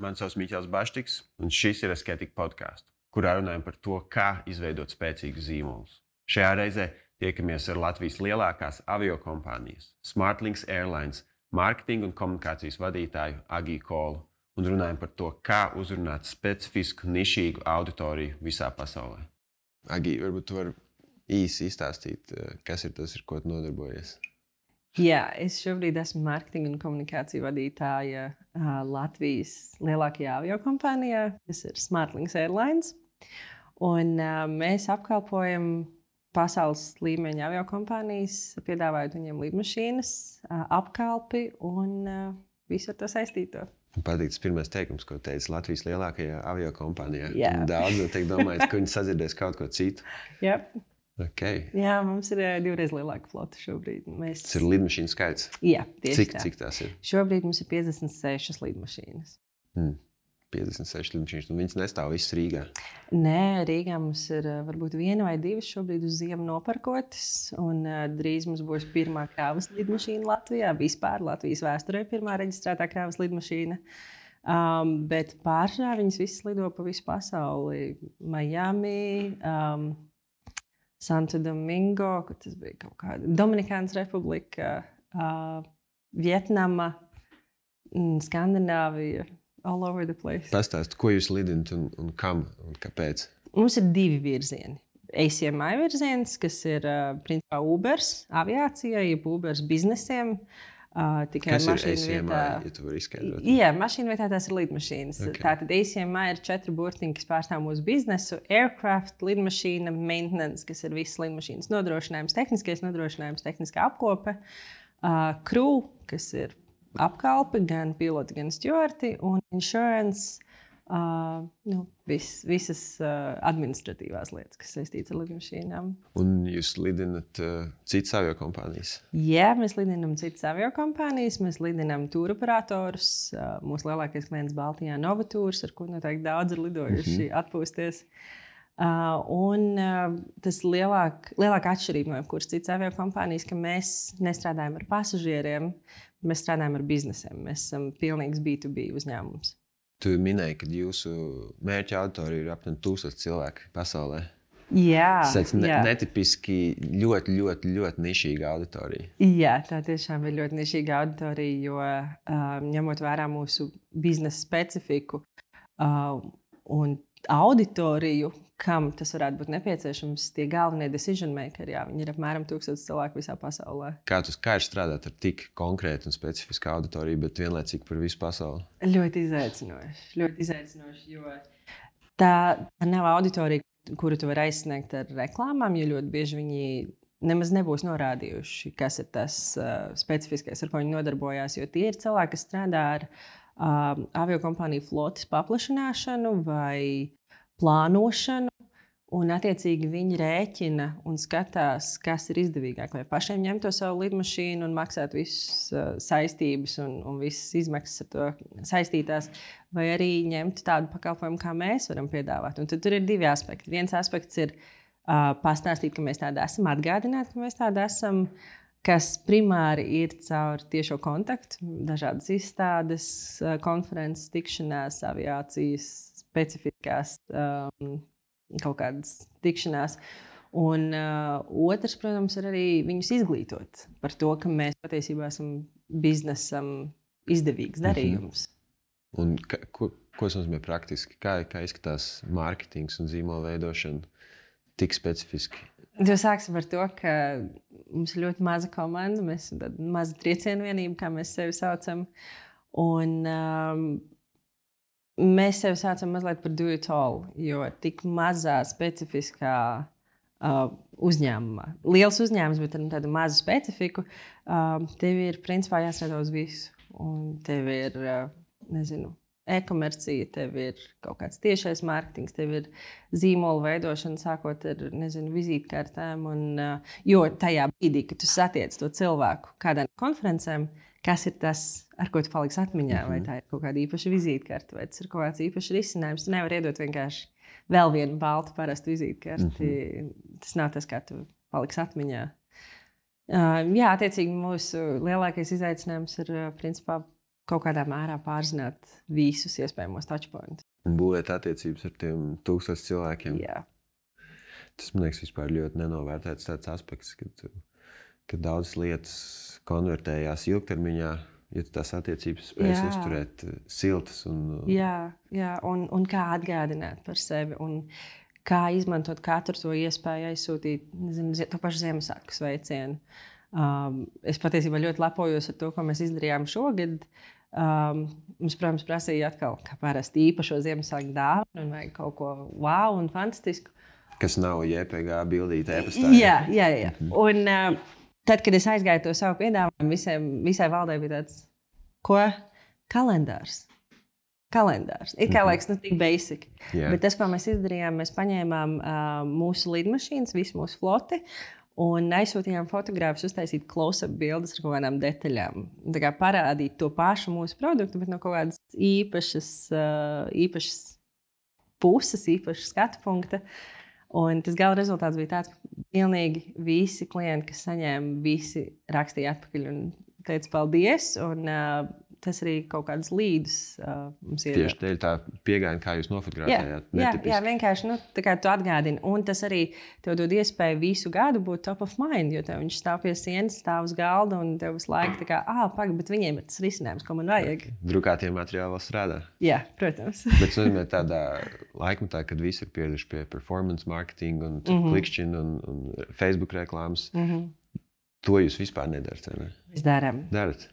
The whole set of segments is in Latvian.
Mani sauc Miķels Baštiks, un šis ir Asketika podkāsts, kurā runājam par to, kā izveidot spēcīgus zīmolus. Šajā reizē tiekamies ar Latvijas lielākās aviokompānijas Smartlinks Airlines mārketinga un komunikācijas vadītāju Agiju Kolu un runājam par to, kā uzrunāt specifisku, nišīgu auditoriju visā pasaulē. Agija, varbūt tu vari īsi izstāstīt, kas ir tas, ar ko tu nodarbojies? Jā, es šobrīd esmu mārketinga un komunikāciju vadītāja Latvijas lielākajā aviokompānijā, kas ir Smartlinks Airlines. Un, mēs apkalpojam pasaules līmeņa aviokompānijas, piedāvājot viņiem lidmašīnas, apkalpi un visu ar to saistīto. Man patīk tas pirmais teikums, ko teici Latvijas lielākajā aviokompānijā. Jā. Daudz noteikti domājat, ka viņi sadzirdēs kaut ko citu. Yep. Okay. Jā, mums ir 2 reizes lielāka flota šobrīd. Tas ir lidmašīnu skaits? Jā, tieši tā. Cik tās ir? Šobrīd mums ir 56 lidmašīnas. 56 lidmašīnas, un viņas nestāv visas Rīgā? Nē, Rīgā mums ir varbūt 1 vai 2 šobrīd uz ziemu nopirkotas, un drīz mums būs pirmā kravas lidmašīna Latvijā. Vispār Latvijas vēsturē pirmā reģistrētā kravas lidmašīna. Bet pārsvarā viņas visas lido pa visu pasauli. Miami, Santo Domingo, kur tas bija kaut kāda Dominikānas Republika, Vietnama, Skandināvija, all over the place. Pastāst, ko jūs lidinat un kam un kāpēc? Mums ir 2 virzieni. ACMI virziens, kas ir principā Ubers aviācijai, jeb Ubers biznesiem. Kas ir ACMI, ja tu vari izskaidrot? Jā, mašīnu vietā tās ir lidmašīnas. Okay. Tātad ACMI ir 4 burtiņi, kas pārstāv mūsu biznesu. Aircraft, lidmašīna, maintenance, kas ir visas lidmašīnas nodrošinājums, tehniskais nodrošinājums, tehniskā apkope. Crew, kas ir apkalpe, gan piloti, gan stjuarti, un insurance, visas administratīvās lietas, kas saistītas ar lidmašīnām. Un jūs lidinat citas aviokompānijas? Jā, mēs lidinam citas aviokompānijas, mēs lidinam tūroperatorus. Mūsu lielākais klients Baltijā Novatūrs, ar ko noteikti daudz ir lidojuši atpūsties. Un tas lielākā atšķirība no jebkuras citas aviokompānijas, ka mēs nestrādājam ar pasažieriem, mēs strādājam ar biznesiem. Mēs esam pilnīgs B2B uzņēmums. Tu minēji, ka jūsu mērķa auditorija ir apmēram 1000 cilvēki pasaulē. Jā, tas ir netipiski ļoti, ļoti, ļoti nišīga auditorija. Jā, tā tiešām ir ļoti nišīga auditorija, jo ņemot vērā mūsu biznesa specifiku un auditoriju, kam tas varētu būt nepieciešams, tie galvenie decision makeri, viņi ir apmēram 1000 cilvēku visā pasaulē. Kā ir strādāt ar tik konkrētu un specifisku auditoriju, bet vienlaicīgi par visu pasauli? Ļoti izaicinoši, jo tā nav auditorija, kuru tu vari aizsniegt ar reklāmām, jo ļoti bieži viņi nemaz nebūs norādījuši, kas ir tas specifiskais, ar ko viņi nodarbojās, jo tie ir cilvēki, kas strādā ar aviokompāniju flotes paplašināšanu vai plānošanu, un attiecīgi viņi rēķina un skatās, kas ir izdevīgāk. Vai pašiem ņemt to savu lidmašīnu un maksāt visas saistības un visas izmaksas ar to saistītās, vai arī ņemt tādu pakalpojumu, kā mēs varam piedāvāt. Un tad tur ir 2 aspekti. Viens aspekts ir pastāstīt, ka mēs tādi esam, atgādināt, ka mēs tādi esam, kas primāri ir caur tiešo kontaktu, dažādas izstādes, konferences, tikšanās, aviācijas, specifiskās kaut kādas tikšanās. Un otrs, protams, ir arī viņus izglītot par to, ka mēs patiesībā esam biznesam izdevīgs darījums. Un ko tas nozīmē praktiski? Kā izskatās mārketings un zīmola veidošana tik specifiski? Sāksim ar to, ka mums ir ļoti maza komanda. Mēs esam tāda maza triecienu vienība, kā mēs sevi saucam. Un mēs sevi saucam mazliet par do it all, jo tik mazā specifiskā uzņēmumā. Liels uzņēmums, bet ar tādu mazu specifiku, tev ir principā jāstrādā uz visu. Un tev ir, e-komercija, tev ir kaut kāds tiešais mārketings, tev ir zīmola veidošana, sākot ar, vizītkartēm. Jo tajā brīdī, kad tu satiec to cilvēku kādā no konferencēm, kas ir tas, ar ko tu paliksi atmiņā, vai tā ir kaut kāda īpaša vizītkarte, vai tas ir kaut kāds īpašs risinājums. Tu nevari iedot vienkārši vēl vienu baltu parastu vizītkarti. Tas nav tas, kā tu paliksi atmiņā. Jā, attiecīgi mūsu lielākais izaicinājums ir principā kaut kādā mērā pārzināt visus iespējamos touchpointus. Un būvēt attiecības ar tiem 1000 cilvēkiem. Jā. Tas, man liekas, vispār ļoti nenovērtēts tāds aspekts, kad daudzas lietas konvertējās ilgtermiņā, ja tu tās attiecības spējas uzturēt siltas. Jā, un kā atgādināt par sevi un kā izmantot katru to iespēju aizsūtīt, nezinu, to pašu Ziemassvētku sveicienu. Es patiesībā ļoti lepojos ar to, ko mēs izdarījām šogad. Mums, protams, prasīja atkal, kā parasti īpašo Ziemassvētku dāvanu un vajag kaut ko wow un fantastisku. Kas nav JPG bildīte e-pastā. Jā. Un tad, kad es aizgāju to savu piedāvājumu, visai valdē bija tāds, ko? Kalendārs. It kā liekas, tik basic. Bet tas, ko mēs izdarījām, mēs paņēmām mūsu lidmašīnas, visu mūsu floti, un aizsūtījām fotogrāfus uztaisīt close-up bildes ar kaut kādām detaļām. Tā kā parādīt to pašu mūsu produktu, bet no kaut kādas īpašas puses, īpašas skatu punkta. Un tas gala rezultāts bija tāds, ka pilnīgi visi klienti, kas saņēma, visi rakstīja atpakaļ un teica paldies. Un tas arī kaut kādas līdus mums ir. Tieši dēļ tā pieeja, kā jūs nofotografējāt. Jā, vienkārši tā kā tu atgādini. Un tas arī tev dod iespēju visu gadu būt top of mind, jo tev viņš stāv pie sienas, stāv uz galda un tev visu laiku tā kā, pagaid, bet viņiem ir tas risinājums, ko man vajag. Drukātie materiāli vēl strādā. Jā, protams. Bet nozīmē tādā laikmetā, kad visi ir pieraduši pie performance marketing un klikšķina un Facebook reklāmas. To jūs vispār nedarat, vai ne? Mēs darām.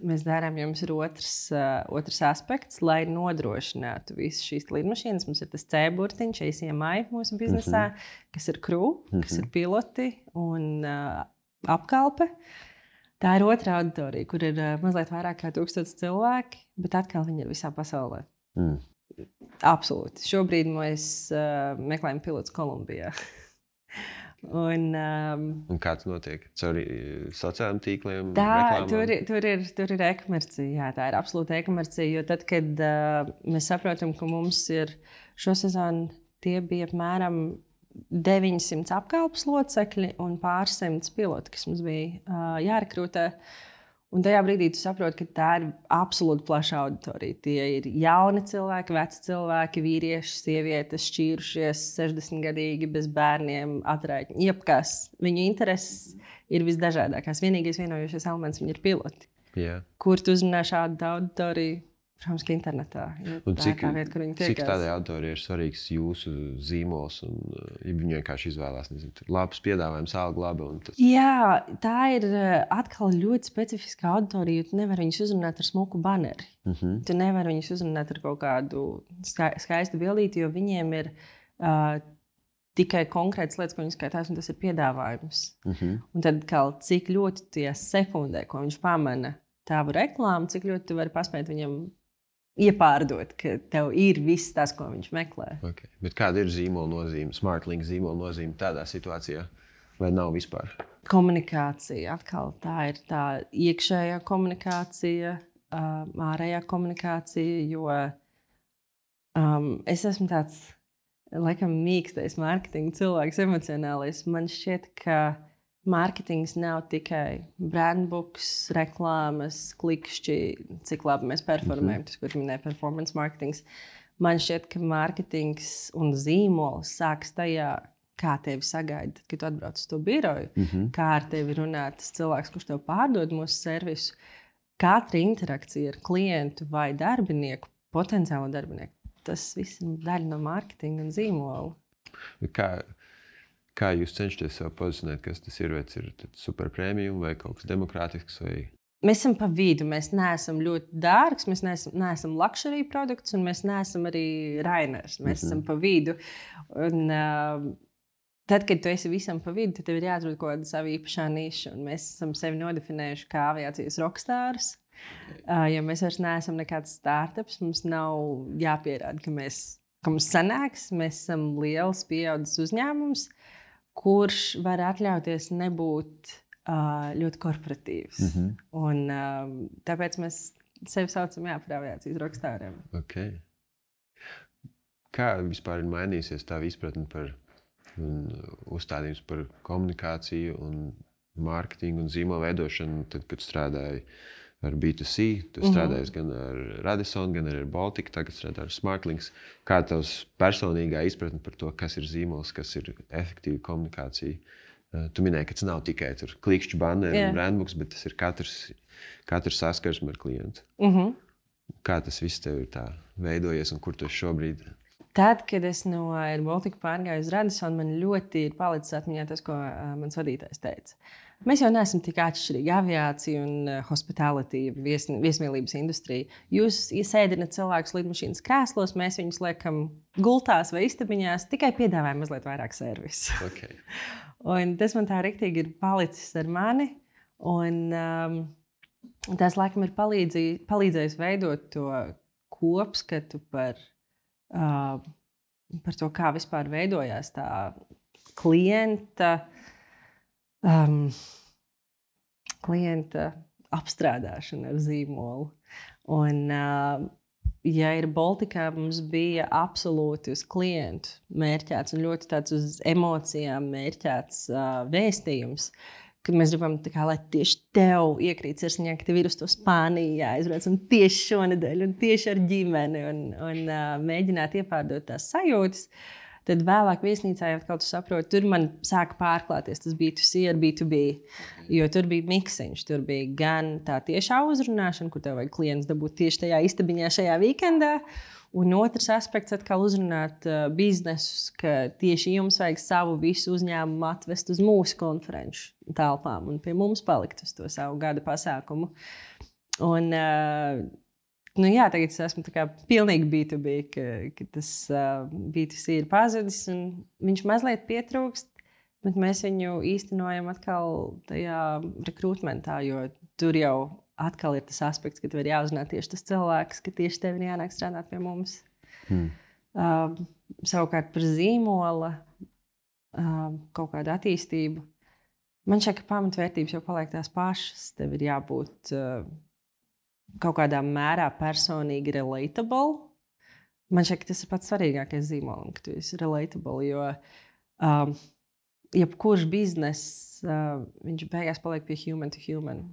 Mēs darām, jo mums ir otrs aspekts, lai nodrošinātu visas šīs lidmašīnas. Mums ir tas C-burtiņš, ACMI mūsu biznesā, kas ir crew, kas ir piloti un apkalpe. Tā ir otra auditorija, kur ir mazliet vairāk kā 1000 cilvēki, bet atkal viņi ir visā pasaulē. Absolūti. Šobrīd mēs meklējam pilotus Kolumbijā. Un kā tas notiek? Caur sociālajiem tīkliem? Tur ir e-komercija. Jā, tā ir absolūta e-komercija. Jo tad, kad mēs saprotam, ka mums ir šo sezonu, tie bija apmēram 900 apkalpes locekļi un pārsimts piloti, kas mums bija jārekrutē. Un tajā brīdī tu saproti, ka tā ir absolūti plaša auditorija. Tie ir jauni cilvēki, veci cilvēki, vīrieši, sievietes, šķīrušies, 60-gadīgi, bez bērniem, atraitņi. Jebkas. Viņu intereses ir visdažādākās. Vienīgais vienojošais elements viņi ir piloti. Kur tu uzrunā šādu auditoriju? Protams, ka internetā. Un cik tādai auditorijai ir svarīgs jūsu zīmols un ja viņi vienkārši izvēlās, nezinu, labs piedāvājums, alga laba un tas? Jā, tā ir atkal ļoti specifiska auditorija, jo tu nevari viņus uzrunāt ar smuku baneri. Tu nevari viņus uzrunāt ar kaut kādu skaistu bildīti, jo viņiem ir tikai konkrētas lietas, ko viņi skatās, un tas ir piedāvājums. Un tad cik ļoti tie sekundē, ko viņš pamana tavu reklāmu, cik ļoti tu vari paspēt viņam iepārdot, ka tev ir viss tas, ko viņš meklē. Okay. Bet kāda ir zīmola nozīme, SmartLink zīmola nozīme tādā situācijā? Vai nav vispār? Komunikācija. Atkal tā ir tā iekšējā komunikācija, ārējā komunikācija, jo es esmu tāds, laikam, mīkstais mārketinga cilvēks, emocionālais. Man šķiet, ka mārketings nav tikai brandbooks, reklāmas, klikšķi, cik labi mēs performējam, tas, kur minēja performance marketings. Man šķiet, ka mārketings un zīmols sāks tajā, kā tevi sagaida, kad tu atbrauc uz to biroju, kā ar tevi runā tas cilvēks, kurš tev pārdod mūsu servisu. Katra interakcija ar klientu vai darbinieku, potenciālo darbinieku, tas viss ir daļa no mārketinga un zīmola. Kā jūs cenšaties sev pozicionēt, kas tas ir? Vai tas ir super premium vai kaut kas demokrātisks? Vai... Mēs esam pa vidu. Mēs neesam ļoti dārgs, mēs neesam luxury produkts un mēs neesam arī Rainers. Mēs esam pa vidu. Un, tad, kad tu esi visam pa vidu, tad tev ir jāatrod kaut kāda sava īpašā niša. Un mēs esam sevi nodefinējuši kā aviācijas rockstars. Ja mēs vairs neesam nekāds startups, mums nav jāpierāda, ka mums sanāks. Mēs esam liels pieaudzis uzņēmums, kurš var atļauties nebūt ļoti korporatīvs. Un tāpēc mēs sevi saucam par aviācijas rockstāriem. Okay. Kā vispār ir mainījusies tā izpratne par uzstādījums par komunikāciju un mārketingu un zīmola veidošanu, tad, kad strādāju ar B2C, tu strādājies gan ar Radisson, gan ar Baltiku, tagad strādā ar Smartlinks. Kā tavs personīgā izpratne par to, kas ir zīmols, kas ir efektīva komunikācija? Tu minēji, ka tas nav tikai klikšķu banneri un brandbooks, bet tas ir katrs saskarsme ar klientu. Kā tas viss tev ir tā veidojies un kur tu esi šobrīd? Tad, kad es no Air Baltica pārgāju uz Radisson, man ļoti ir palicis atmiņā tas, ko mans vadītājs teica. Mēs jau neesam tik atšķirīgi aviācija un hospitality, viesmīlības industrija. Jūs sēdināt cilvēkus lidmašīnas krēslos, mēs viņus liekam gultās vai istabiņās, tikai piedāvājam mazliet vairāk servisu. Okay. Un tas man tā riktīgi ir palicis ar mani. Un tas, laikam, ir palīdzējis veidot to kopskatu par to, kā vispār veidojās tā klienta apstrādāšana ar zīmolu. Un, ja ir Baltikā, mums bija absolūti uz klientu mērķēts un ļoti tāds uz emocijām mērķēts vēstījums, ka mēs gribam, lai tieši tev iekrīt sirsniņā, ka tev ir uz to Spāniju jāizbrauc un tieši šonedēļ un tieši ar ģimeni un mēģināt iepārdot tās sajūtas. Tad vēlāk viesnīcā jau kaut kā saprotu, tur man sāka pārklāties tas B2C ar B2B, jo tur bija miksiņš, tur bija gan tā tiešā uzrunāšana, kur tev vajag klients dabūt tieši tajā istabiņā šajā weekendā, un otrs aspekts atkal uzrunāt biznesus, ka tieši jums vajag savu visu uzņēmumu atvest uz mūsu konferenču telpām un pie mums palikt uz to savu gada pasākumu. Un, tagad es esmu pilnīgi B2B, ka tas B2C ir pazudis un viņš mazliet pietrūkst, bet mēs viņu īstenojam atkal tajā rekrutmentā, jo tur jau atkal ir tas aspekts, ka tev ir jāuzrunā tieši tas cilvēks, ka tieši tev ir jānāk strādāt pie mums. Savukārt par zīmola kaut kādu attīstību. Man šķiet, ka pamatvērtības jau paliek tās pašas. Tev ir jābūt kaut kādā mērā personīgi relatable. Man šķiet, ka tas ir pats svarīgākais zīmolam, ka tu esi relatable, jo jebkurš bizness, viņš beigās paliek pie human to human.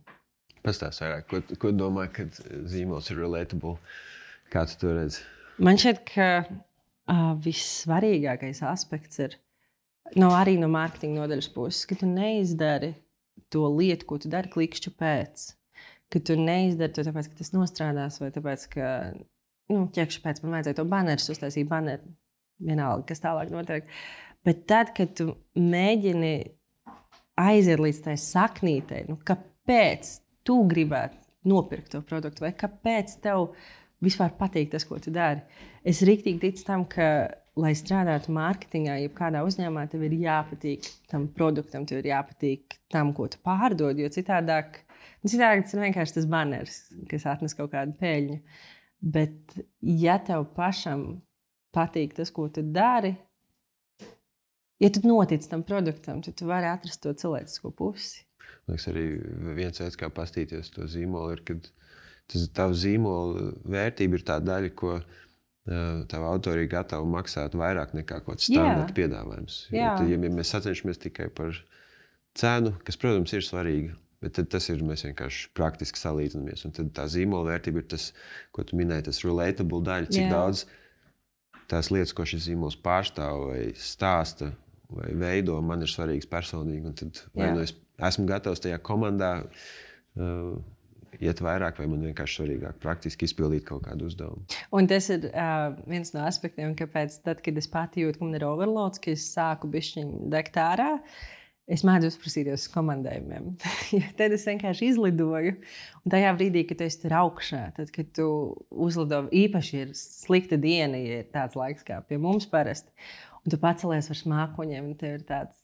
Pastāst vairāk, ko domā, kad zīmols ir relatable? Kā tu to redzi? Man šķiet, ka vissvarīgākais aspekts ir arī no mārketinga nodaļas puses, ka tu neizdari to lietu, ko tu dari klikšķu pēc. Ka tu neizdari to tāpēc, ka tas nostrādās, vai tāpēc, ka ķekšu pēc man vajadzēja to banerus, uztaisīt baneru, vienalga, kas tālāk notiek. Bet tad, kad tu mēģini aiziet līdz tai saknītei, kāpēc tu gribētu nopirkt to produktu, vai kāpēc tev vispār patīk tas, ko tu dari. Es riktīgi ticu tam, ka, lai strādātu mārketingā, jebkādā uzņēmumā, tev ir jāpatīk tam produktam, tev ir jāpatīk tam, ko tu pārdod, jo citādāk tas ir vienkārši tas banners, kas atnes kaut kādu peļņu. Bet, ja tev pašam patīk tas, ko tu dari, ja tu notic tam produktam, tad tu vari atrast to cilvēcisko pusi. Liekas, arī viens veids, kā pastīties to zīmolu, ir, kad tavu zīmolu vērtība ir tā daļa, ko tava autori ir gatavi maksāt vairāk nekā kaut kāds standarta piedāvājums. Ja mēs sacenšamies tikai par cenu, kas, protams, ir svarīga, bet tad tas ir, mēs vienkārši praktiski salīdzinamies. Un tad tā zīmola vērtība ir tas, ko tu minēji, tas relatable daļa, cik daudz tās lietas, ko šis zīmols pārstāv vai stāsta vai veido, man ir svarīgs personīgi. Un tad vai nu es esmu gatavs tajā komandā iet vairāk, vai man vienkārši svarīgāk praktiski izpildīt kaut kādu uzdevumu. Un tas ir viens no aspektiem, kāpēc tad, kad es pati jūtu, ka man ir overloads, ka es sāku bišķiņ degt ārā, es mēdzu uzprasīties uz komandējumiem. Tad es vienkārši izlidoju. Un tajā brīdī, kad tu esi tur augšā, tad, kad tu uzlido, īpaši ir slikta diena, ja ir tāds laiks kā pie mums parasti, un tu pacelies ar smākoņiem, un tev ir tāds,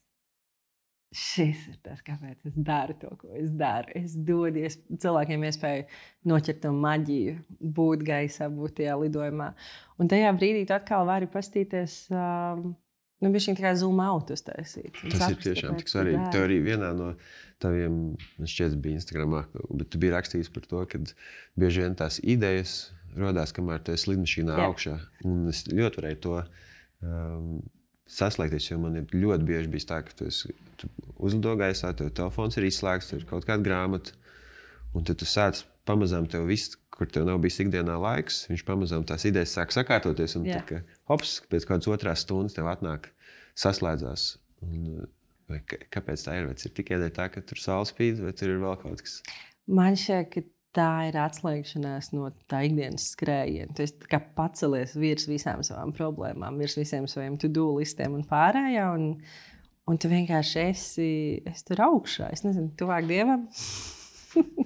šis ir tas, kāpēc es daru to, ko es daru. Es dodu cilvēkiem iespēju noķert to maģiju, būt gaisā, būt tajā lidojumā. Un tajā brīdī tu atkal vari pastīties, bišķiņ tā kā zoom out uztaisīt. Tas ir tiešām tik svarīgi. Tev arī vienā no taviem, man šķiet, bija Instagramā, bet tu biji rakstījis par to, ka bieži vien tās idejas rodās, kamēr tu esi lidmašīnā augšā. Un es ļoti varēju to saslēgties, jo man ir ļoti bieži bijis tā, ka tu uzlido gaisā, tev telefons ir izslēgts, tur ir kaut kāda grāmata, un tad tu sāc pamazām tev viss, kur tev nav bijis ikdienā laiks, viņš pamazām tās idejas sāk sakārtoties. Un tad, hops, pēc kādas otrās stundas tev atnāk, saslēdzās. Kāpēc tā ir? Vai tas ir tikai tā, ka tur saule spīd, vai tur ir vēl kaut kas? Man šķiet, ka tā ir atslēgšanās no tā ikdienas skrējiena. Tu esi pacelies virs visām savām problēmām, virs visiem saviem to-do listiem un pārējā. Un tu vienkārši esi tur augšā. Es nezinu, tuvāk Dievam.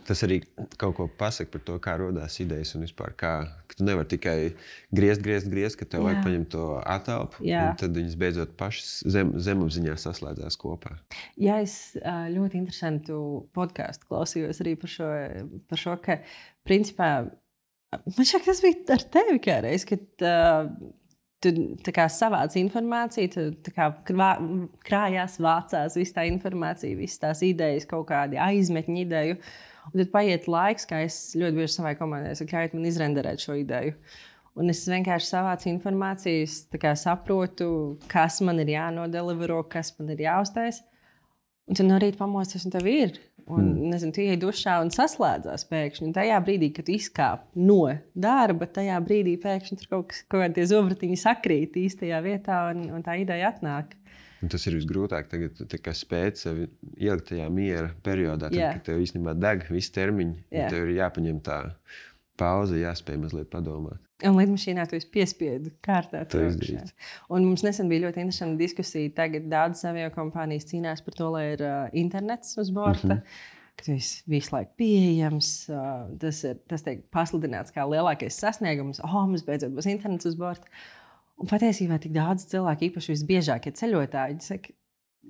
Tas arī kaut ko pasaka par to, kā rodās idejas un vispār kā, ka tu nevari tikai griezt, ka tev vajag paņemt to atelpu, un tad viņas beidzot pašas zemapziņā saslēdzās kopā. Jā, es ļoti interesantu podcastu klausījos arī par šo, ka principā, man šķiet, tas bija ar tevi kādreiz, kad tu savāc informāciju, tu krājās, vācās visu tā informāciju, visas tās idejas, kaut kādi aizmetņu ideju. Un tad paiet laiks, kā es ļoti bieži savai komandai saku, ļaujiet man izrenderēt šo ideju. Un es vienkārši savācu informāciju, saprotu, kas man ir jānodelivero, kas man ir jāuztais. Un tad no rīta pamosties, un tev ir. Un, nezinu, tu iej dušā un saslēdzās pēkšņi. Un tajā brīdī, kad tu izkāp no darba, tajā brīdī pēkšņi tur kaut kādi zobratiņi sakrīt īstajā vietā, un tā ideja atnāk. Un tas ir visgrūtāk tagad, spēt sevi ielikt tajā miera periodā, tad, kad tev īstenībā deg visi termiņi. Tev ir jāpaņem tā pauze, jāspēj mazliet padomāt. Un lidmašīnā tu esi piespiedu kārtā. Un mums nesen bija ļoti interesanta diskusija. Tagad daudzas aviokompānijas cīnās par to, lai ir internets uz borta. Ka tu esi visu laiku pieejams. Tas tiek pasludināts kā lielākais sasniegums. Mums beidzot būs internets uz borta. Un patiesībā tik daudz cilvēku, īpaši visbiežākie ceļotāji, saka,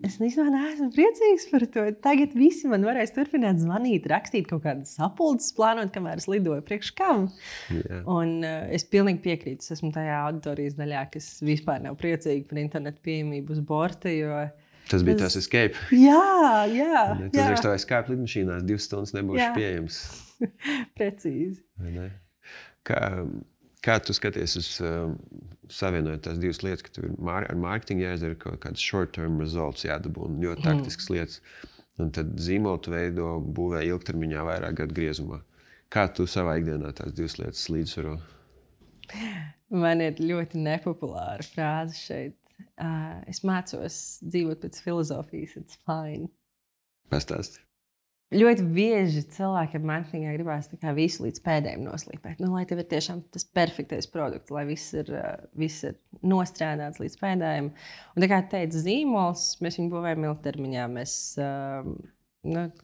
es neesmu priecīgs par to. Tagad visi man varēs turpināt zvanīt, rakstīt kaut kādas sapulces, plānot, kamēr es lidoju priekš kam. Un es pilnīgi piekrītu. Es esmu tajā auditorijas daļā, kas vispār nav priecīgi par internetu pieejamību uz borta, jo... Tas bija tas escape. Jā. Tas ir tā escape lidmašīnās, 2 stundas nebūšu pieejams. Precīzi. Kā tu skaties uz savienojot tās 2 lietas, ka tev ir ar mārketingu jāizdara kaut kādas short-term results jādabū un ļoti taktiskas lietas. Un tad zīmolu tu veido, būvē ilgtermiņā vairāk gadu griezumā. Kā tu savā ikdienā tās 2 lietas līdzsvaro? Man ir ļoti nepopulāra frāze šeit. Es mācos dzīvot pēc filozofijas, it's fine. Pastāsti. Ļoti bieži cilvēki ar mārketingā gribās visu līdz pēdējiem noslīpēt. Lai tev ir tiešām tas perfektais produkts, lai viss ir nostrādāts līdz pēdējiem. Un tā kā teica zīmols, mēs viņu būvējam ilgtermiņā. Mēs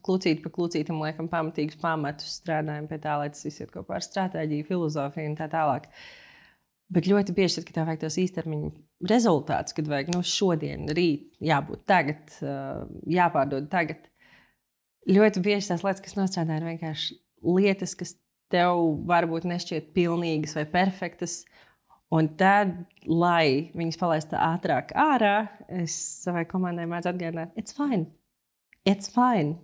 klucīt pa klucītam liekam pamatīgus pamatus, strādājam pie tā, lai tas viss iet kopā ar stratēģiju, filozofiju un tā tālāk. Bet ļoti bieži, kad tev vajag tos īstermiņa rezultātus, kad vajag šodien, rīt, jābūt tagad, jāpārdod tagad. Ļoti bieži tās lietas, kas nostrādā, ir vienkārši lietas, kas tev varbūt nešķiet pilnīgas vai perfektas. Un tad, lai viņas palaistu ātrāk ārā, es savai komandai mēdzu atgādināt, it's fine. It's fine.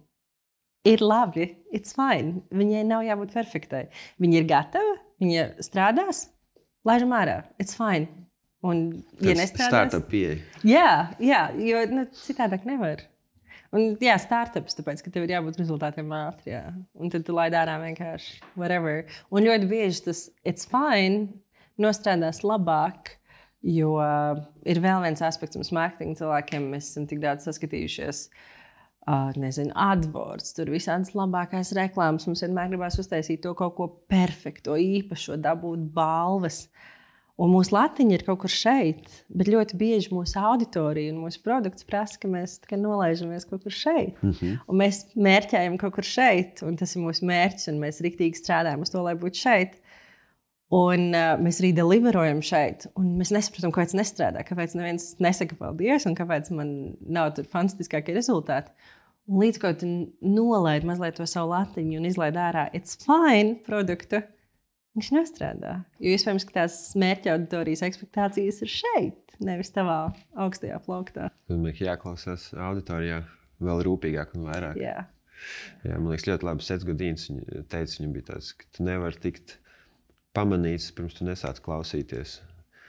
Ir labi, it's fine. Viņai nav jābūt perfektai. Viņa ir gatava, viņa strādās, laižam ārā, it's fine. Un, ja nestrādās... Startup pieeja. Jā, jo citādāk nevar. Un, startups, tāpēc, ka tev ir jābūt rezultātiem ātri. Jā. Un tad tu laid ārā vienkārši whatever. Un ļoti bieži tas it's fine nostrādās labāk, jo ir vēl viens aspekts mums mārketinga cilvēkiem. Mēs esam tik daudz saskatījušies, AdWords, tur visādas labākās reklāmas. Mums vienmēr gribās uztaisīt to kaut ko perfekto, īpašo, dabūt balvas. Un mūsu latiņa ir kaut kur šeit, bet ļoti bieži mūsu auditorija un mūsu produkts prasa, ka mēs nolaižamies kaut kur šeit. Un mēs mērķējam kaut kur šeit, un tas ir mūsu mērķis, un mēs riktīgi strādājam uz to, lai būtu šeit. Un mēs arī deliverojam šeit, un mēs nesaprotam, kāpēc nestrādā, kāpēc neviens nesaka paldies, un kāpēc man nav tur fantastiskākie rezultāti. Un līdz ko tu nolaid mazliet to savu latiņu un izlaid ārā it's fine produktu, viņš nestrādā. Jo iespējams, ka tās mērķa auditorijas ekspektācijas ir šeit, nevis tavā augstajā plauktā. Tad man jāklausās auditorijā vēl rūpīgāk un vairāk. Jā, man liekas, ļoti labi Sets Godins teica, viņam bija tāds, ka tu nevari tikt pamanīts, pirms tu nesāc klausīties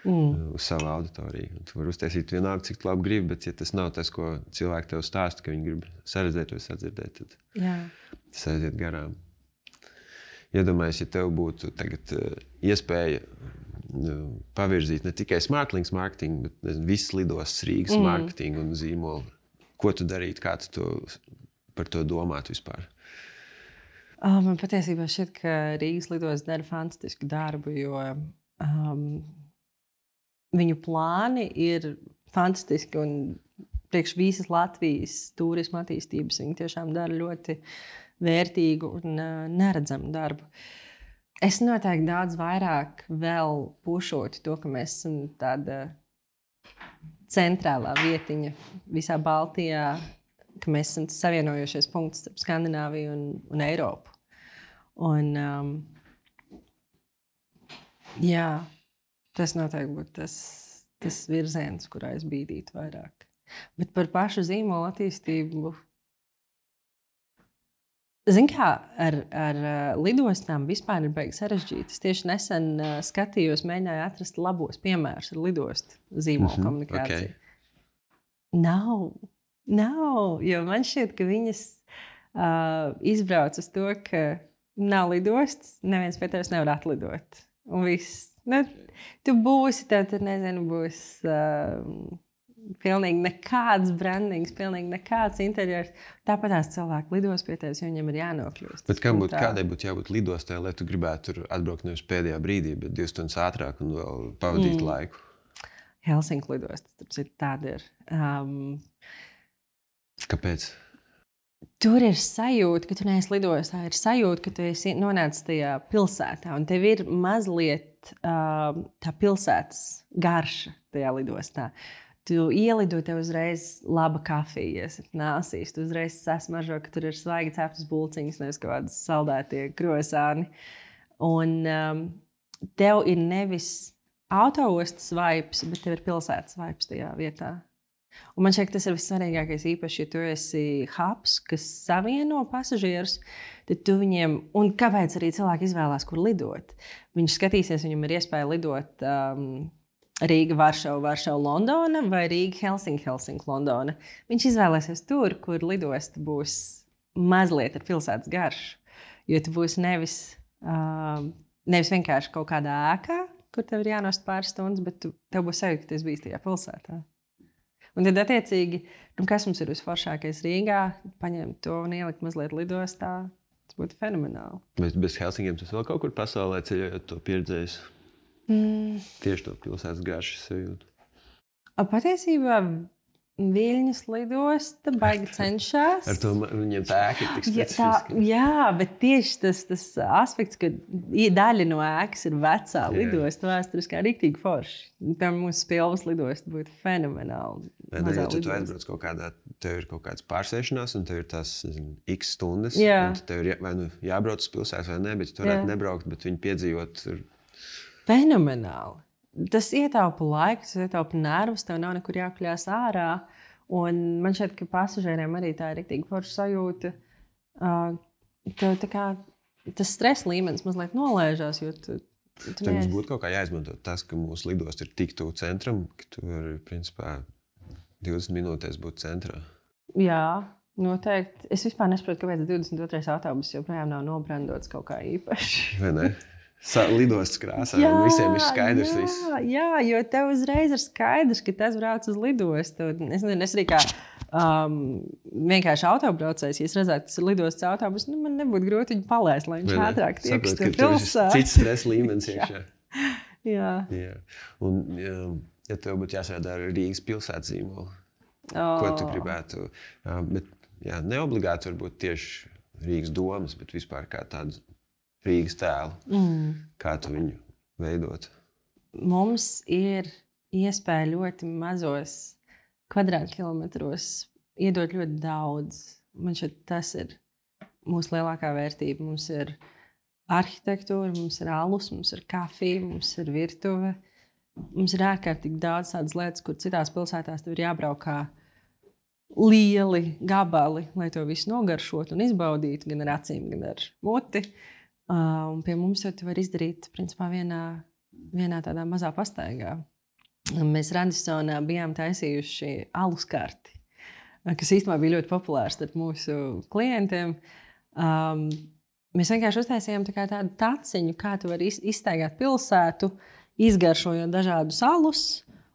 uz savu auditoriju. Tu vari uztaisīt vienalga, cik labi gribi, bet ja tas nav tas, ko cilvēki tev stāsta, ka viņi grib saredzēt vai sadzirdēt, tad tas aiziet garām. iedomājies, ja tev būtu tagad iespēja pavirzīt ne tikai SmartLinks marketingu, bet visas lidostas Rīgas marketingu un zīmolu. Ko tu darītu, kā tu par to domātu vispār? Man patiesībā šķiet, ka Rīgas lidostas dara fantastisku darbu, jo viņu plāni ir fantastiski un priekš visas Latvijas turisma attīstības viņi tiešām dara ļoti vērtīgu un neredzamu darbu. Es noteikti daudz vairāk vēl pušotu to, ka mēs esam tāda centrālā vietiņa visā Baltijā, ka mēs esam savienojošies punkts starp Skandināviju un Eiropu. Un, jā, tas noteikti būtu tas virziens, kurā es bīdītu vairāk. Bet par pašu zīmolu attīstību, zini kā, ar lidostām vispār ir baigi sarežģīti. Es tieši nesen skatījos, mēģināju atrast labos piemērus ar lidostu zīmolu komunikāciju. Okay. Nav, jo man šķiet, ka viņas izbrauc uz to, ka nav lidostas, neviens pie tevis nevar atlidot. Un viss. Nu, tu būsi, tev tur, nezinu, būs pilnīgi nekāds brandings, pilnīgi nekāds interjers. Tāpat tās cilvēki lidos pie tevis, jo viņam ir jānokļūst. Bet kādai būtu jābūt lidostai, lai tu gribētu tur atbraukt nevis pēdējā brīdī, bet 2 stundas ātrāk un vēl pavadīt laiku? Helsinku lidostas, tāda ir. Kāpēc? Tur ir sajūta, ka tu neesi lidostā. Ir sajūta, ka tu esi nonācis tajā pilsētā. Un tev ir mazliet tā pilsētas garša tajā lidostā. Tu ielido, tev uzreiz laba kafija, nāsīs. Tu uzreiz sasmažo, ka tur ir svaigi ceptas bulciņas, nevis kaut kādas saldētie krosāni. Un tev ir nevis autoostas vibes, bet tev ir pilsētas vibes tajā vietā. Un man šķiet, tas ir vissvarīgākais, īpaši, ja tu esi hubs, kas savieno pasažierus, tad tu viņiem, un kāpēc arī cilvēki izvēlās, kur lidot? Viņš skatīsies, viņam ir iespēja lidot Rīga, Varšava, Londona vai Rīga, Helsinki, Londona. Viņš izvēlēsies tur, kur lidosta būs mazliet ar pilsētas garšu. Jo tu būsi nevis vienkārši kaut kādā ēkā, kur tev ir jānost pāris stundas, bet tev būs sajūta, ka tu esi bijis tajā pilsētā. Un tad, attiecīgi, kas mums ir visforšākais Rīgā, paņemt to un ielikt mazliet lidostā, tas būtu fenomenāli. Bet bez Helsinkiem tas vēl kaut kur pasaulē ceļojot to pieredzējis? Tieši to pilsētas garšu sajūtu. Patiesībā Viļņas lidosta baigi cenšas. Ar to viņiem tā ēka ir tik specifiska. Jā, bet tieši tas aspekts, ka daļa no ēkas ir vecā lidosta, vēsturiskā riktīgi forši. Piemēram, mūsu Spilvas lidosta būtu fenomenāli. Ja tu aizbrauc kaut kādā, tev ir kaut kāds pārsēšanās, un tev ir tās x stundas, un tev ir vai nu jābrauc uz pilsētu vai ne, bet tu varētu nebraukt, bet viņu piedzīvot ir... Fenomenāli. Tas ietaupa laiku, tas ietaupa nervus, tev nav nekur jākļās ārā. Un man šķiet, ka pasažieriem arī tā ir riktīgi forša sajūta. Tev tā kā tas stresa līmenis mazliet nolēžās, jo tu Tev mums būtu kaut kā jāizmanto tas, ka mūsu lidosta ir tik tuvu centram, ka tu vari, principā, 20 minūtēs būt centrā. Jā, noteikti. Es vispār nesaprotu, kāpēc 22. autobus joprojām nav nobrandots kaut kā īpaši. Vai ne? Lidostas krāsā, un visiem ir skaidrs viss. Jā, jo tev uzreiz ir skaidrs, ka tas brauc uz lidostu. Es arī kā vienkārši autobraucējs, ja es redzētu, ka tas ir lidostas autobus, man nebūtu grūti viņu palaist, lai viņš ātrāk tieks to pilsētu. Cits stress līmenis iekšā. Jā. Un, ja tev būtu jāsēdā ar Rīgas pilsētas zīmolu, ko tu gribētu? Bet, neobligāti varbūt tieši Rīgas domas, bet vispār kā tādu Rīgas tēlu. Kā tu viņu veidot? Mums ir iespēja ļoti mazos kvadrātkilometros iedot ļoti daudz. Man šķiet, tas ir mūsu lielākā vērtība. Mums ir arhitektūra, mums ir alus, mums ir kafija, mums ir virtuve. Mums ir ārkārtīgi daudz tādas lietas, kur citās pilsētās tev ir jābrauk kā lieli gabali, lai to visu nogaršot un izbaudītu, gan ar acīm, gan ar muti. Un pie mums jau tu var izdarīt, principā, vienā tādā mazā pastaigā. Mēs Radissonā bijām taisījuši alus karti, kas īstenībā bija ļoti populārs starp mūsu klientiem. mēs vienkārši uztaisījām tādu taciņu, kā tu vari izstaigāt pilsētu, izgaršojot dažādus alus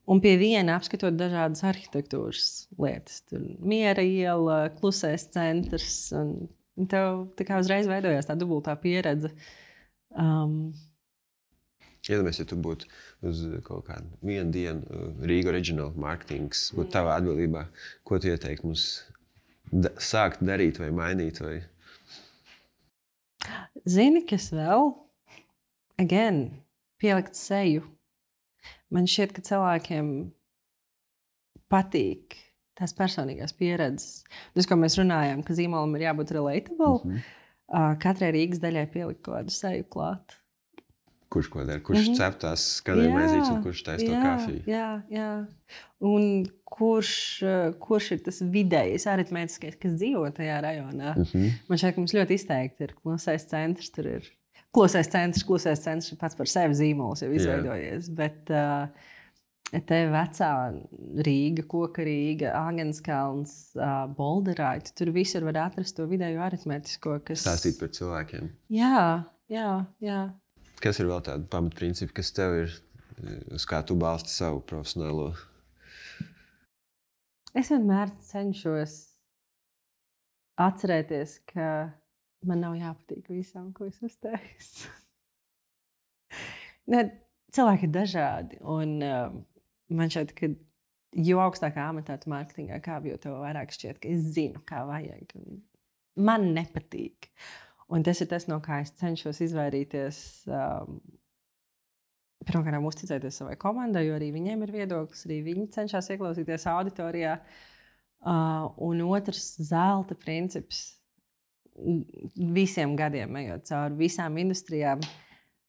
un pie viena apskatot dažādas arhitektūras lietas. Tur Miera iela, Klusais centrs. Un tev tā kā uzreiz veidojās tā dubultā pieredze. Iedomājies, ja tu būtu uz kaut kādu vienu dienu Rīga Original marketings, būtu tavā atbildībā, ko tu ieteiktu mums sākt darīt vai mainīt? Vai? Zini, kas vēl? Pielikt seju. Man šķiet, ka cilvēkiem patīk tās personīgās pieredzes. Tas, ko mēs runājām, ka zīmolam ir jābūt relatable, katrai Rīgas daļai pielikt kaut kādu seju klāt. Kurš ko dara? Kurš cep tās skanēja maizītes un kurš taisa to kafiju? Jā. Un kurš ir tas vidējais aritmētiskais, kas dzīvo tajā rajonā? Man šķiet, ka mums ļoti izteikti ir Klusais centrs. Tur ir Klusais centrs pats par sevi zīmols jau izveidojies. Bet te vecā Rīga, Koka Rīga, Āgenskalns, Bolderāti, tur visur var atrast to vidējo aritmētisko, kas... Stāstīt par cilvēkiem. Jā. Kas ir vēl tādi pamatprincipi, kas tev ir, uz kā tu balsti savu profesionālo? Es vienmēr cenšos atcerēties, ka man nav jāpatīk visam, ko es uztaisu. Cilvēki ir dažādi, un man šķiet, ka jo augstākā amatā tu mārketingā kāp, jo tev vairāk šķiet, ka es zinu, kā vajag. Man nepatīk. Un tas ir tas, no kā es cenšos izvairīties. Pirmkārt, uzticēties savai komandai, jo arī viņiem ir viedoklis, arī viņi cenšas ieklausīties auditorijā. Un otrs, zelta princips. Visiem gadiem, ejot cauri visām industrijām,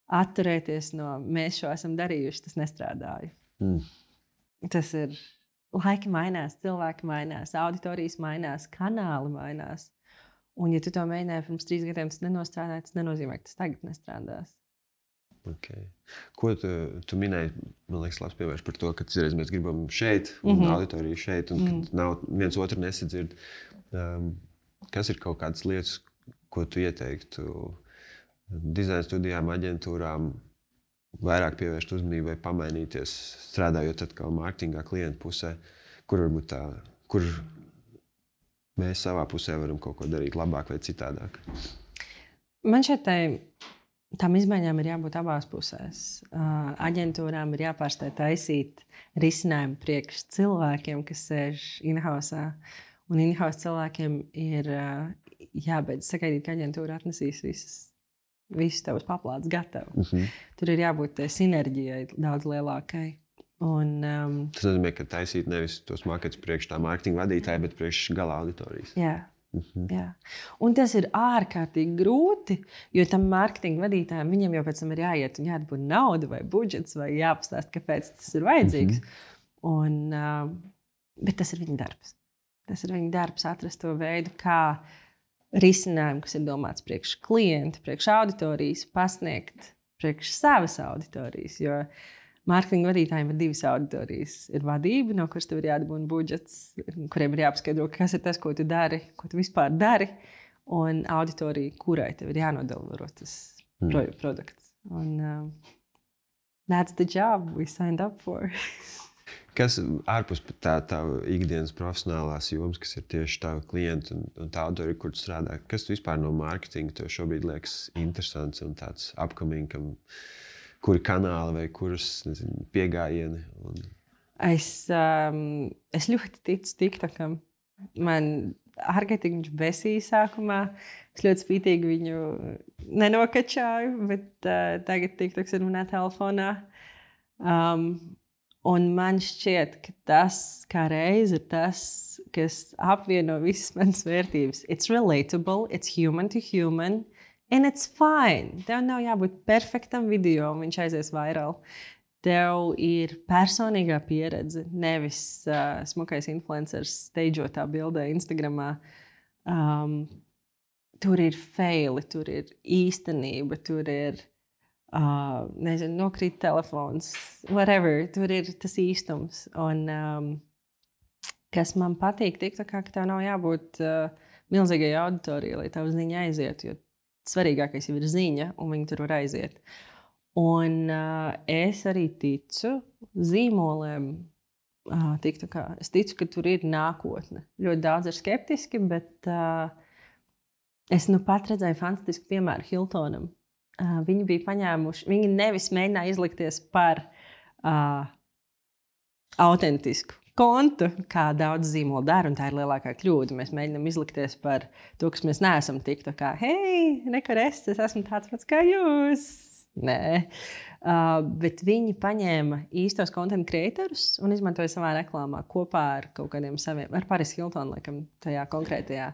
atturēties no mēs šo esam darījuši, tas nestrādāja. Tas ir laiki mainās, cilvēki mainās, auditorijas mainās, kanāli mainās. Un, ja tu to mēģināji pirms 3 gadiem, tas nenostrādāja, tas nenozīmē, ka tas tagad nestrādās. Okay. Ko tu minēji, man liekas, labs piemērs par to, ka citreiz mēs gribam šeit, un auditoriju šeit, un kad nav viens otru nesadzird. Kas ir kaut kādas lietas, ko tu ieteiktu dizaina studijām, aģentūrām, vairāk pievērst uzmanību vai pamainīties, strādājot atkal mārketingā klientu pusē, kur varbūt tā, kur mēs savā pusē varam kaut ko darīt labāk vai citādāk? Man šeit tām izmaiņām ir jābūt abās pusēs. Aģentūrām ir jāpārstāj taisīt risinājumu priekš cilvēkiem, kas sēž in-housā. Un in-house cilvēkiem ir jābeidz sagaidīt, ka aģentūra atnesīs visus tavus paplātus gatavu. Tur ir jābūt sinerģijai daudz lielākai. Tas nozīmē, ka taisīt nevis tos marketus priekš tā mārketinga vadītāja, bet priekš gala auditorijas. Jā. Un tas ir ārkārtīgi grūti, jo tam mārketinga vadītājam viņam jau pēc tam ir jāiet un jādabū nauda vai budžets vai jāpastāst, kāpēc tas ir vajadzīgs. Bet tas ir viņa darbs. Tas ir viņa darbs atrast to veidu, kā risinājumu, kas ir domāts priekš klienta, priekš auditorijas, pasniegt priekš savas auditorijas. Jo mārketinga vadītājiem ir 2 auditorijas. Ir vadība, no kuras tev ir jādabūna budžets, kuriem ir jāpaskaidro, kas ir tas, ko tu dari, ko tu vispār dari, un auditorija, kurai tev ir jānodelivero tas produkts. That's the job we signed up for. Kas ārpus tā ikdienas profesionālās jomas, kas ir tieši tava klienta un tā auditorija, kur tu strādā, kas tu vispār no mārketinga tev šobrīd liekas interesants un tāds upcoming, kuri kanāli vai kuras piegājieni? Es ļoti ticu TikTokam. Man ārkārtīgi viņš besīja sākumā. Es ļoti spītīgi viņu nenokačāju, bet tagad TikToks ir manā telefonā. Un man šķiet, ka tas kā reiz ir tas, kas apvieno visas manas vērtības. It's relatable, it's human to human. And it's fine. Tev nav jābūt perfektam video, un viņš aizies viral. Tev ir personīgā pieredze, nevis smukais influencers steidžotā bildē Instagramā. Tur ir faili, tur ir īstenība, tur ir, nokrīt telefons, whatever. Tur ir tas īstums. Un kas man patīk, ka tev nav jābūt milzīgai auditorijai, lai tavu ziņu aizietu, jo svarīgākais jau ir ziņa, un viņi tur var aiziet. Un es arī ticu zīmoliem. Es ticu, ka tur ir nākotne. Ļoti daudz ir skeptiski, bet es nu pat redzēju fantastisku piemēru Hiltonam. Viņi bija paņēmuši, viņi nevis mēģināja izlikties par autentisku kontu, kā daudz zīmolu dara, un tā ir lielākā kļūda. Mēs mēģinām izlikties par to, kas mēs neesam tik tā kā, hei, nekur es esmu tāds pats kā jūs. Nē, bet viņi paņēma īstos content creatorus un izmantoja savā reklāmā kopā ar kaut kādiem saviem, ar Paris Hilton, laikam, tajā konkrētajā.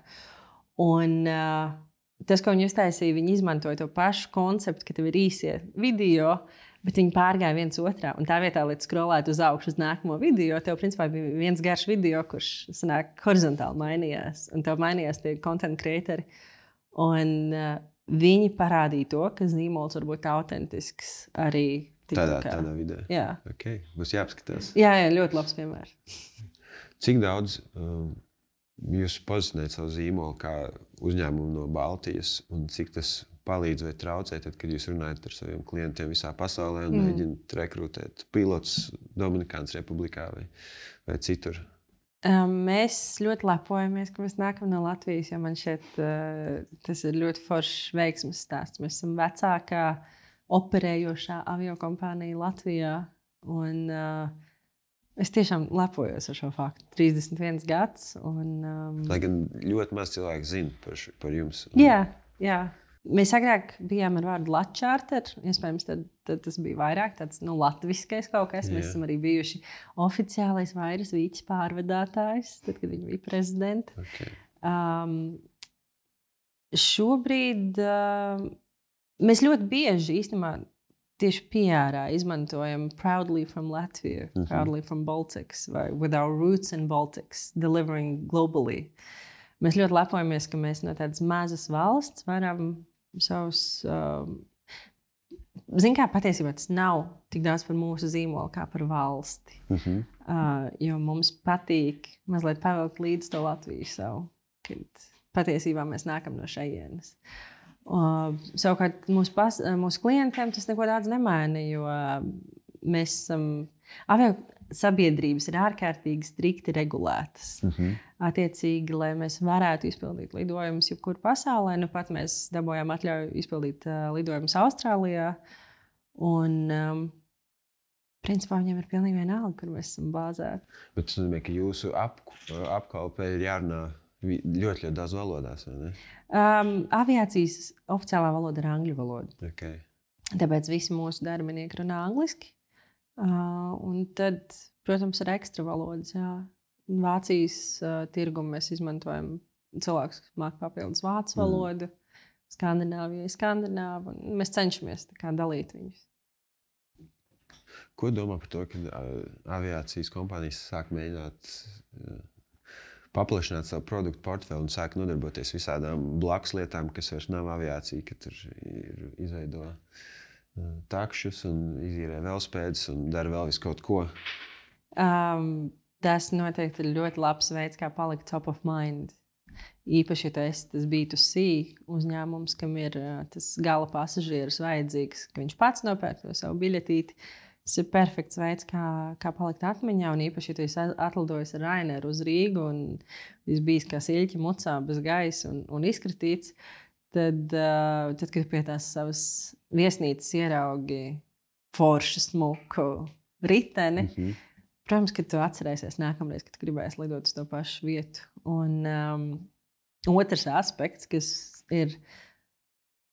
Un tas, ko viņi uztaisīja, viņi izmantoja to pašu konceptu, ka tev ir īsie video, bet viņi pārgāja viens otrā. Un tā vietā, lai skrolētu uz augšu uz nākamo video, tev principā bija viens garš video, kurš sanāk horizontāli mainījās. Un tev mainījās tie content creatori. Un viņi parādīja to, ka zīmols var būt autentisks arī tādā vidē. Jā. Okay. Būs jāapskatās. Jā, ļoti labs piemērs. Cik daudz jūs pozicionējat savu zīmolu kā uzņēmumu no Baltijas un cik tas palīdz vai traucē, tad, kad jūs runājat ar saviem klientiem visā pasaulē un mēģināt rekrutēt pilotus Dominikānas Republikā vai citur? Mēs ļoti lepojamies, ka mēs nākam no Latvijas, jo man šeit tas ir ļoti foršs veiksmes stāsts. Mēs esam vecākā operējošā aviokompānija Latvijā. Un es tiešām lepojos ar šo faktu. 31 gads. Lai gan ļoti maz cilvēku zina par jums. Jā. Mēs agrāk bijām ar vārdu Latčārter. Iespējams, tad tas bija vairāk tāds latviskais kaut kas. Mēs esam arī bijuši oficiālais vairas vīķis pārvadātājs, tad, kad viņi bija prezidenti. Okay. Šobrīd mēs ļoti bieži īstenībā tieši PR-ā izmantojam Proudly from Latvia, Proudly from Baltics, vai With our roots in Baltics, delivering globally. Mēs ļoti lepojamies, ka mēs no tādas mazas valsts varam savus... Zin kā, patiesībā tas nav tik daudz par mūsu zīmolu kā par valsti. Jo mums patīk mazliet pavilkt līdz to Latviju savu, kad patiesībā mēs nākam no šejienes. Savukārt mūsu klientiem tas neko daudz nemaina, jo mēs esam... Sabiedrības ir ārkārtīgi strikti regulētas. Attiecīgi, lai mēs varētu izpildīt lidojumus jebkur pasaulē, nu pat mēs dabūjām atļauju izpildīt lidojumus Austrālijā. Un, principā, viņiem ir pilnīgi vienalga, kur mēs esam bāzēti. Bet tas nozīmē, ka jūsu apkalpē ir jārunā ļoti daudz valodās, vai ne? Aviācijas oficiālā valoda ir angļu valoda. Okay. Tāpēc visi mūsu darbinieki runā angliski. Un tad, protams, ir ekstra valodas. Jā. Vācijas tirgumu mēs izmantojam cilvēkus, kas māk papildus vācu valodu, Skandināvijai skandināvu, un mēs cenšamies tā kā dalīt viņus. Ko domā par to, ka aviācijas kompānijas sāk mēģināt paplašināt savu produktu portfeli un sāk nodarboties visādām blakus lietām, kas vairs nav aviācija, ka tur ir izveido takšus un izīrē velospēdus un dara vēl visu kaut ko? Tas noteikti ir ļoti labs veids, kā palikt top of mind. Īpaši, ja tas B2C uzņēmums, kam ir tas gala pasažieris vajadzīgs, ka viņš pats nopērk to savu biļetīti. Tas ir perfekts veids, kā palikt atmiņā. Un īpaši, ja tu esi atlidojis ar Raineru uz Rīgu un esi bijis kā siļķi mucā bez gaisa un izkritīts, tad, kad pie tās savas viesnīcas ieraugi foršu smuku riteni, protams, ka tu atcerēsies nākamreiz, kad gribēsi lidot uz to pašu vietu. Un otrs aspekts, kas ir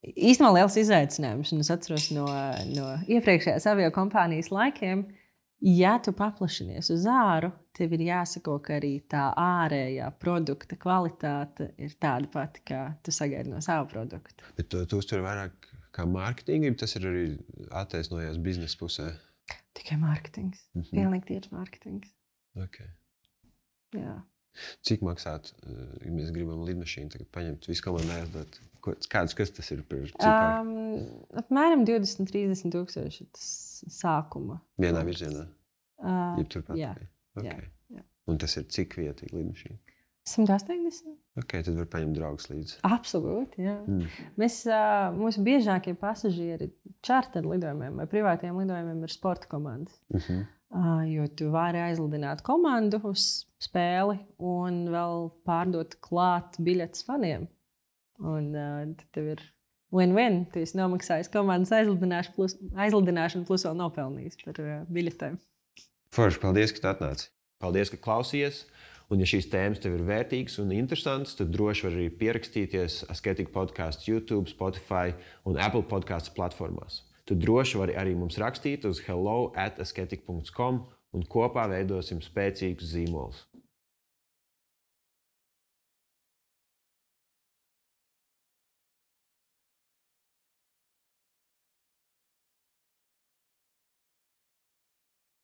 īstenībā liels izaicinājums, un es atceros no iepriekšējās aviokompānijas laikiem, ja tu paplašinies uz āru, tev ir jāsako, ka arī tā ārējā produkta kvalitāte ir tāda pati, kā tu sagaidi no savu produktu. Bet tu uztver vairāk kā mārketingu, tas ir arī attaisnojās biznesa pusē? Tikai mārketings. Pilnīgi tieši mārketings. Okay. Jā. Cik maksātu, ja mēs gribam lidmašīnu tagad paņemt visu komandu aizdot? Kas tas ir par ciparu? Apmēram 20-30 tūkstoši tas sākuma. Vienā virzienā? Jā. Okay. Jā. Un tas ir cik vietīgi lidmašīna? 180. Ok, tad var paņemt draugus līdzi. Absolūti, jā. Mūsu biežākie pasažieri čārter lidojumiem vai privātiem lidojumiem ir sporta komandas. Jo tu vari aizlidināt komandu uz spēli un vēl pārdot klāt biļetes faniem. Un tad tev ir win-win. Tu esi nomaksājis komandas aizlidināšanu plus vēl nopelnījis par biļetēm. Forši, paldies, ka tu atnāci. Paldies, ka klausījies. Un, ja šīs tēmas tev ir vērtīgas un interesantas, tad droši var arī pierakstīties Asketika podcastu YouTube, Spotify un Apple podcastu platformās. Tu droši vari arī mums rakstīt uz hello@asketika.com un kopā veidosim spēcīgus zīmolus.